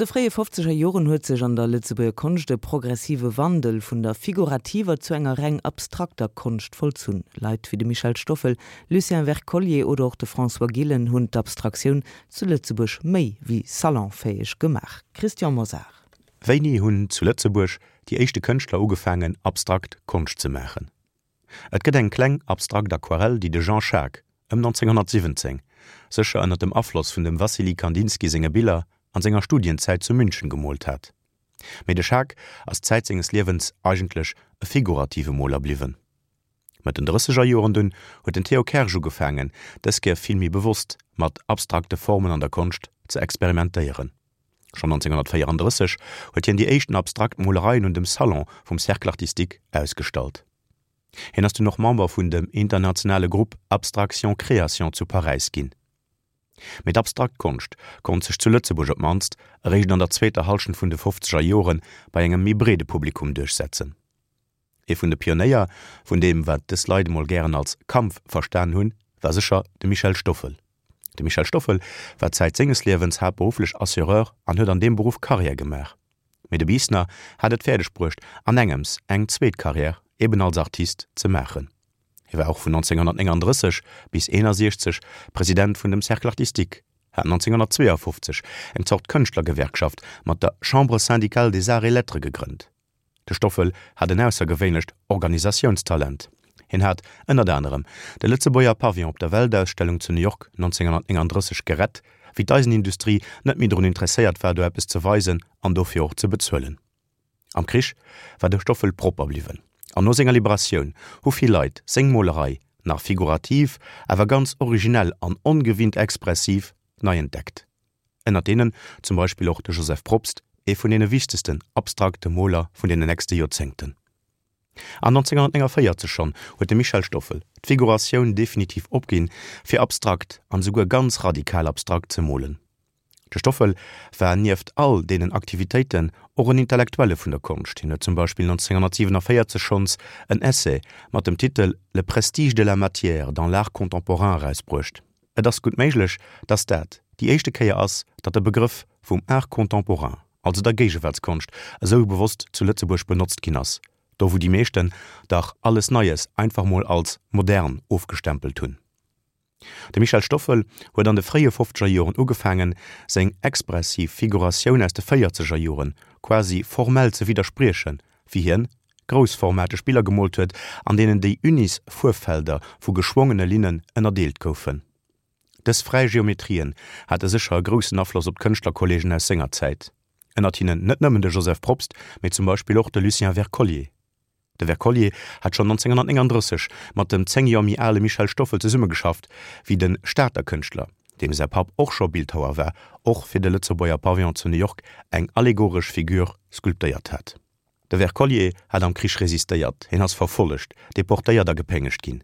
An de fréie fofzeger Joren huet sech an der Lëtzebuerger Konscht e progressive Wandel vun der figurativer zu enger reng abstrakter Konscht vollzunn. Leit wéi de Michel Stoffel, Lucien Wercollier oder och de François Gillen hunn d'Abstraktioun zu Lëtzebuerg méi wéi salonfäeg gemaach. Christian Mosar. Wéini hunn zu Lëtzebuerg déi éischte Kënschtler ugefaangen abstrakt Konscht ze maachen? Et gëtt eng kleng abstrakt Aquarell, déi de Jean Schaack ëm 1917, sécher ënner dem Afloss vun dem Wassily Kandinsky senge Biller, an senger Studienzäit zu München gemoolt hat. Mee de Schaack ass Zäit senges Liewens eigentlech e figurative Moler bliwwen. Mëtt den drësseger Joren dunn huet den Theo Kersch ugefaangen, dës Kéier vill méi bewosst mat abstrakte Formen an der Konscht ze experimentéieren. Schonn 1934 huet hien déi éischten abstrakt Molereien un dem Salon vum Cercle artistique ausgestallt. Hien ass dunn och Member vun dem internationale Grupp Abstraction Création zu Paräis ginn. Mee d'abstrakt Konscht konnt sech zu Lëtzebuerg op d'mannst eréischt an der zweeter Hallschent vun de fofzeger Jore bei engem méi breede Publikum duerchsetzen. Ee vun de Pionéier vun deem, wat dës Leit emol gären als Kampf verstan hunn, war sécher de Michel Stoffel. De Michel Stoffel war Zäit senges Liewens haaptberufflech Assureur an huet an deem Beruff Karriär gemaach. Mee de Biisner hat et fäerdeg bruecht, an engems eng zweet Karriär, eben als Artist, ze maachen. Hie war och vun 1939 bis 1961 President vun dem Cercle artistique, hat 1952 eng Zort Kënschtlergewerkschaft mat der Chambre syndicale des arts et lettres gegrënnt. De Stoffel hat en aussergewéinlecht Organisatiounstalent. Hien hat ënnert anerem de Lëtzebuerger Pavillon op der Weltausstellung zu New York 1939 gerett, wéi d'Eisenindustrie net méi drun interesséiert war do eppes ze weisen an dofir och ze bezuelen. Am Krich war de Stoffel propper bliwwen an no senger Liberatioun hu vill Leit seng Molerei, nach figurativ, awer ganz originell an ongewinnt expressiv, nei entdeckt. Ënnert deenen zum Beispill och de Joseph Probst, ee vun deene wichtegsten abstrakte Moler vun deenen nächste Joerzéngten. An 1949 schonn huet de Michel Stoffel d'Figuratioun definitiv opginn, fir abstrakt an esouguer ganz radikal abstrakt ze molen. De Stoffel war nieft all deenen Aktivitéiten och en Intellektuelle vun der Konscht. Hien huet zum Beispill 1947 schonns en Essai mat dem Titel Le prestige de la matière dans l'art contemporain erausbruecht. Et ass gutt méiglech, datt dat déi éischte Kéier ass, datt de Begrëff vum Art contemporain, also der Géigewaartskonscht, esou bewosst zu Lëtzebuerg benotzt ginn ass, do wou déi meeschten dach alles Neies einfach mol als modern ofgestempelt hunn. De Michel Stoffel huet an de fréie fofzeger Joren ugefaangen, seng expressiv Figuratioun aus de véierzeger Joren quasi formell ze widderspriechen, wéi hien groussformateg Biller gemoolt huet, an deenen déi unis Fuerffelder vu geschwongene Linnen ënnerdeelt goufen. Dës fräi Geometrien hate sécher e groussen Afloss op d'Kënschtlerkolleegen aus senger Zäit, ënnert hinnen net nëmmen de Joseph Probst, mee zum Beispill och de Lucien Wercollier. De Wercollier hat schonn 1939 mat dem 10 Joer méi ale Michel Stoffel zesummegeschafft, wéi de Stater Kënschtler, deem säi Papp och scho Bildhauer war, och fir de Lëtzebuerger Pavillon zu New York eng allegoresch Figur sculptéiert hat. De Wercollier hat am Krich resistéiert, hien ass verfollegt, deportéiert a gepéngegt ginn.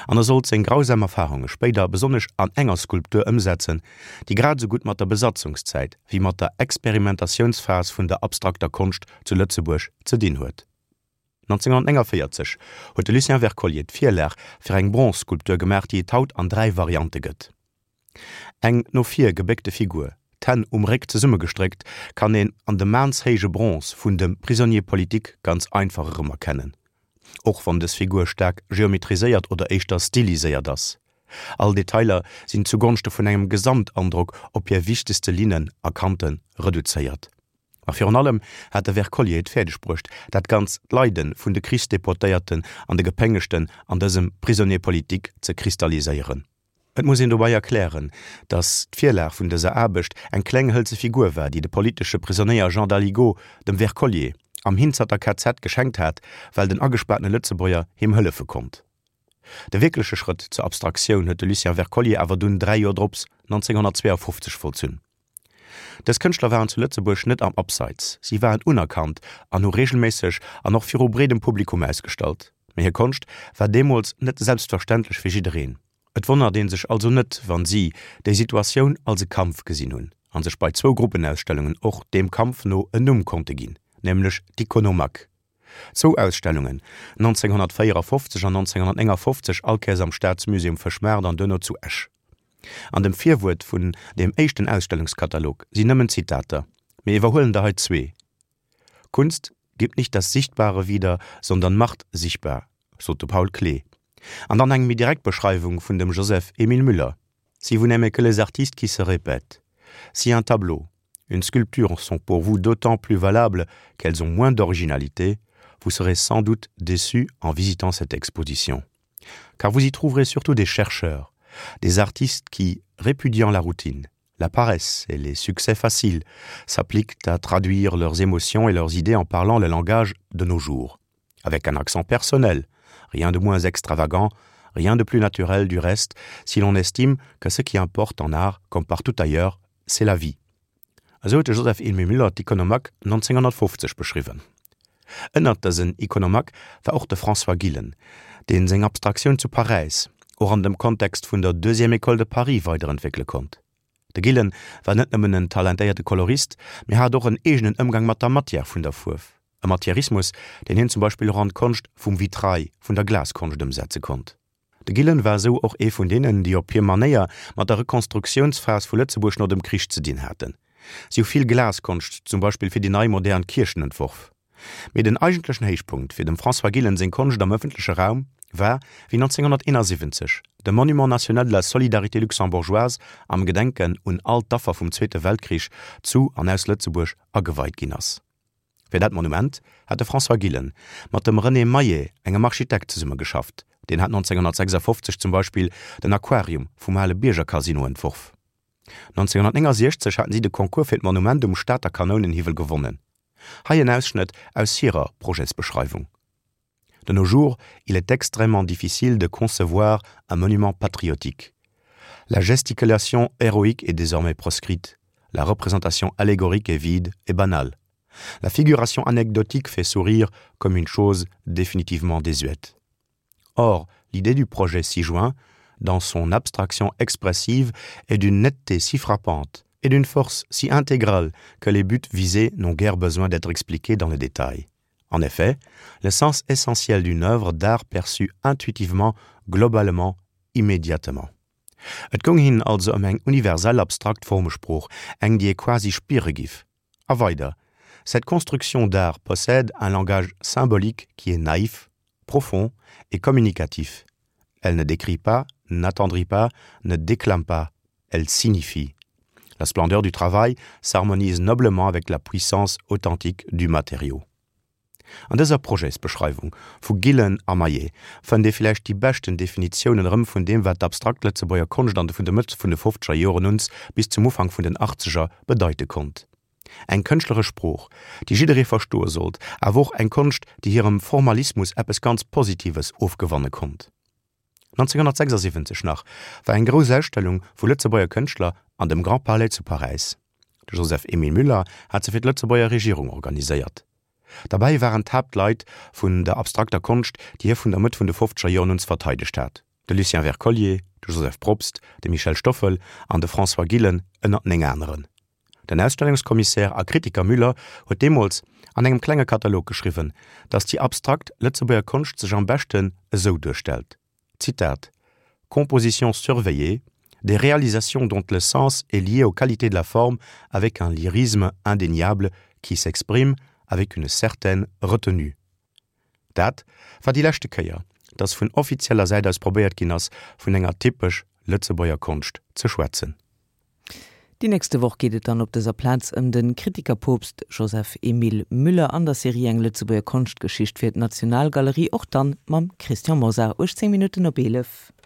An e sollt seng grausam Erfarunge spéider besonnesch an enger Skulptur ëmsetzen, déi grad esou gutt mat der Besatzungszäit wéi mat der Experimentatiounsphas vun der abstrakter Konscht zu Lëtzebuerg ze dinn huet. 1949 huet de Lucien Wercollier d'Virlag fir eng Bronzskulptur gemaach, déi et haut an 3 Variante gëtt. Eng no vir gebéckte Figur, d'Hänn um Réck zesummegestréckt, kann een an dem maanshéije Bronze vun dem Prisonnier politique ganz einfach erëmerkennen, och wann dës Figur staark geometriséiert oder éischter stiliséiert ass. All Detailer sinn zugonschte vun engem Gesamtandrock op hir wichtegste Linnen a Kante reduzéiert. Ma virun allem hat de Wercollier et fäerdeg bruecht, dat ganz d'Leide vun de Krichsdeportéierten an de Gepéngegten an dësem Prisonnier politique ze kristalliséieren. Et muss een dobei erklären, datt d'Virlag vun dëser Aarbecht eng kleng hëlze Figur war, déi de politesche Prisonéier Jean Daligaud dem Wercollier am Hinzerter KZ geschenkt hat, well den agespaartene Lëtzebuerger him hëllefe konnt. De wierkleche Schrëtt zur Abstraktioun huet de Lucien Wercollier awer dunn 3 Joer drops, 1952, vollzunn. Dës Kënschtler waren zu Lëtzebuerg net am Abseits, si waren unerkannt an hu reegelméisseg an och viru breedem Publikum ausgestallt. Mee hir Konscht war deemools net selbstverständlech fir jiddereen. Et wonnert ee sech also net, wann si déi Situatioun als e Kampf gesinn hunn a sech bei zwou Gruppenausstellungen och deem Kampf no en Numm konnte ginn, nämlech d'Iconomaque. Zwou Ausstellungen, 1954 an 1959, allkéiers am Staatsmusée um Fëschmaart an duerno zu Esch. An dem Virwuert vun deem éischten Ausstellungskatalog sinn nëmmen Zitater. Mir iwwerhuelen der hei zwee, Kunst gibt nicht das Sichtbare wieder, sondern macht sichtbar, sot de Paul Klee. An dann eng méi direkt Beschreiwung vun dem Joseph Émile Müller, Si vous n'aimez que les artistes qui se répètent, si un tableau, une sculpture sont pour vous d'autant plus valables qu'elles ont moins d'originalité, vous serez sans doute déçu en visitant cette exposition. Car vous y trouverez surtout des chercheurs, des artistes qui, répudiant la routine, la paresse et les succès faciles, s'appliquent à traduire leurs émotions et leurs idées en parlant le langage de nos jours, avec un accent personnel, rien de moins extravagant, rien de plus naturel du reste, si l'on estime que ce qui importe en art, comme partout ailleurs, c'est la vie. Esou huet de Joseph Emile Müller d'Iconomaque 1950 beschriwwen. Ënnert dësen Iconomaque war och de François Gillen, deen seng Abstraktioun zu Paräis, och an dem Kontext vun der Deuxième École de Paris weiderentwéckele konnt. De Gillen war net nëmmen en talentéierte Kolorist, mee hat och en eegenen Ëmgang mat der Matière vun der Fuerf, e Matièrismus, deen hien zum Beispill och an d'Konscht vum Vitrail, vun der Glaskonscht ëmsetze konnt. De Gillen war esou och ee vun deenen, déi op hir Manéier mat der Rekonstruktiounsphas vu Lëtzebuerg no dem Krich ze dinn haten. Si hu vill Glaskonscht, zum Beispill fir déi nei modern Kierchen entworf. Mee den eigentlechen Héichpunkt fir dem François Gillen seng Konscht am ëffentleche Raum war, wéi 1971 de Monument national de la solidarité luxembourgeoise am Gedenken un all d'Affer vum Zweete Weltkrich zu an aus Lëtzebuerg ageweit ginn ass. Fir dat Monument hat de François Gillen mat dem René Maillet, engem Architekt, zesummegeschafft. Deen hat 1956 zum Beispill den Aquarium vum ale Bierger Casino entworf. 1969 haten si de Concours fir d'Monument um Stater Kanounenhiwwel gewonnen. Hei en Ausschnëtt aus hirer Projetsbeschreiwung. De nos jours, il est extrêmement difficile de concevoir un monument patriotique. La gesticulation héroïque est désormais proscrite, la représentation allégorique est vide et banale. La figuration anecdotique fait sourire comme une chose définitivement désuète. Or, l'idée du projet 6 juin, dans son abstraction expressive, est d'une netteté si frappante et d'une force si intégrale que les buts visés n'ont guère besoin d'être expliqués dans le détail. En effet, le sens essentiel d'une œuvre d'art perçue intuitivement, globalement, immédiatement. Et goung hinnen also ëm eng universell abstrakt Formesprooch, eng déi ee quasi spiere giff. A weider, Cette construction d'art possède un langage symbolique qui est naïf, profond et communicatif. Elle ne décrit pas, n'attendrit pas, ne déclame pas, elle signifie. La splendeur du travail s'harmonise noblement avec la puissance authentique du matériau. An dëser Projetsbeschreiwung vu Gillen a Maillet fënnt ee villäicht déi beschten Definitiounen erëm vun deem wat d'abstrakt Lëtzebuerger Konscht an de vun der Mëtt vun de fofzeger Joren uns bis zum Ufank vun den achtzeger bedeite konnt. Eng kënschtleresch Sprooch, déi jidderee verstoe sollt, awer och eng Konscht, déi hirem Formalismus eppes ganz Positives ofgewanne konnt. 1976 nach war eng grouss Ausstellung vu Lëtzebuerger Kënschtler an dem Grand Palais zu Paräis. De Joseph Emile Müller hat se fir d'Lëtzebuerger Regierung organiséiert. Derbäi waren d'Haaptleit vun der abstrakter Konscht, déi hie vun der Mëtt vun de fofzeger Joren un verteidegt hat, de Lucien Wercollier, de Joseph Probst, de Michel Stoffel an de François Gillen, ënnert 9 aneren. Den Ausstellungskommissär a Kritiker Müller huet deemools an engem klenge Katalog geschriwwen, datt déi abstrakt Lëtzebuerger Konscht sech am beschten esou duerstellt, Zitat, Compositions surveillées, des réalisations dont le sens est lié aux qualités de la forme avec un lyrisme indéniable qui s'exprime avec une certaine retenue. Dat war déi leschte Kéier, datt vun offizieller Säit aus probéiert ginn ass, vun enger typesch Lëtzebuerger Konscht ze schwätzen. Déi nächste Woch geet et dann op dëser Plaz ëm de Kritikerpoopst Joseph Emile Müller an der Serie Eng Lëtzebuerger Konschtgeschicht fir d'Nationalgalerie, och dann mam Christian Mosar. 18 Minutten op 11.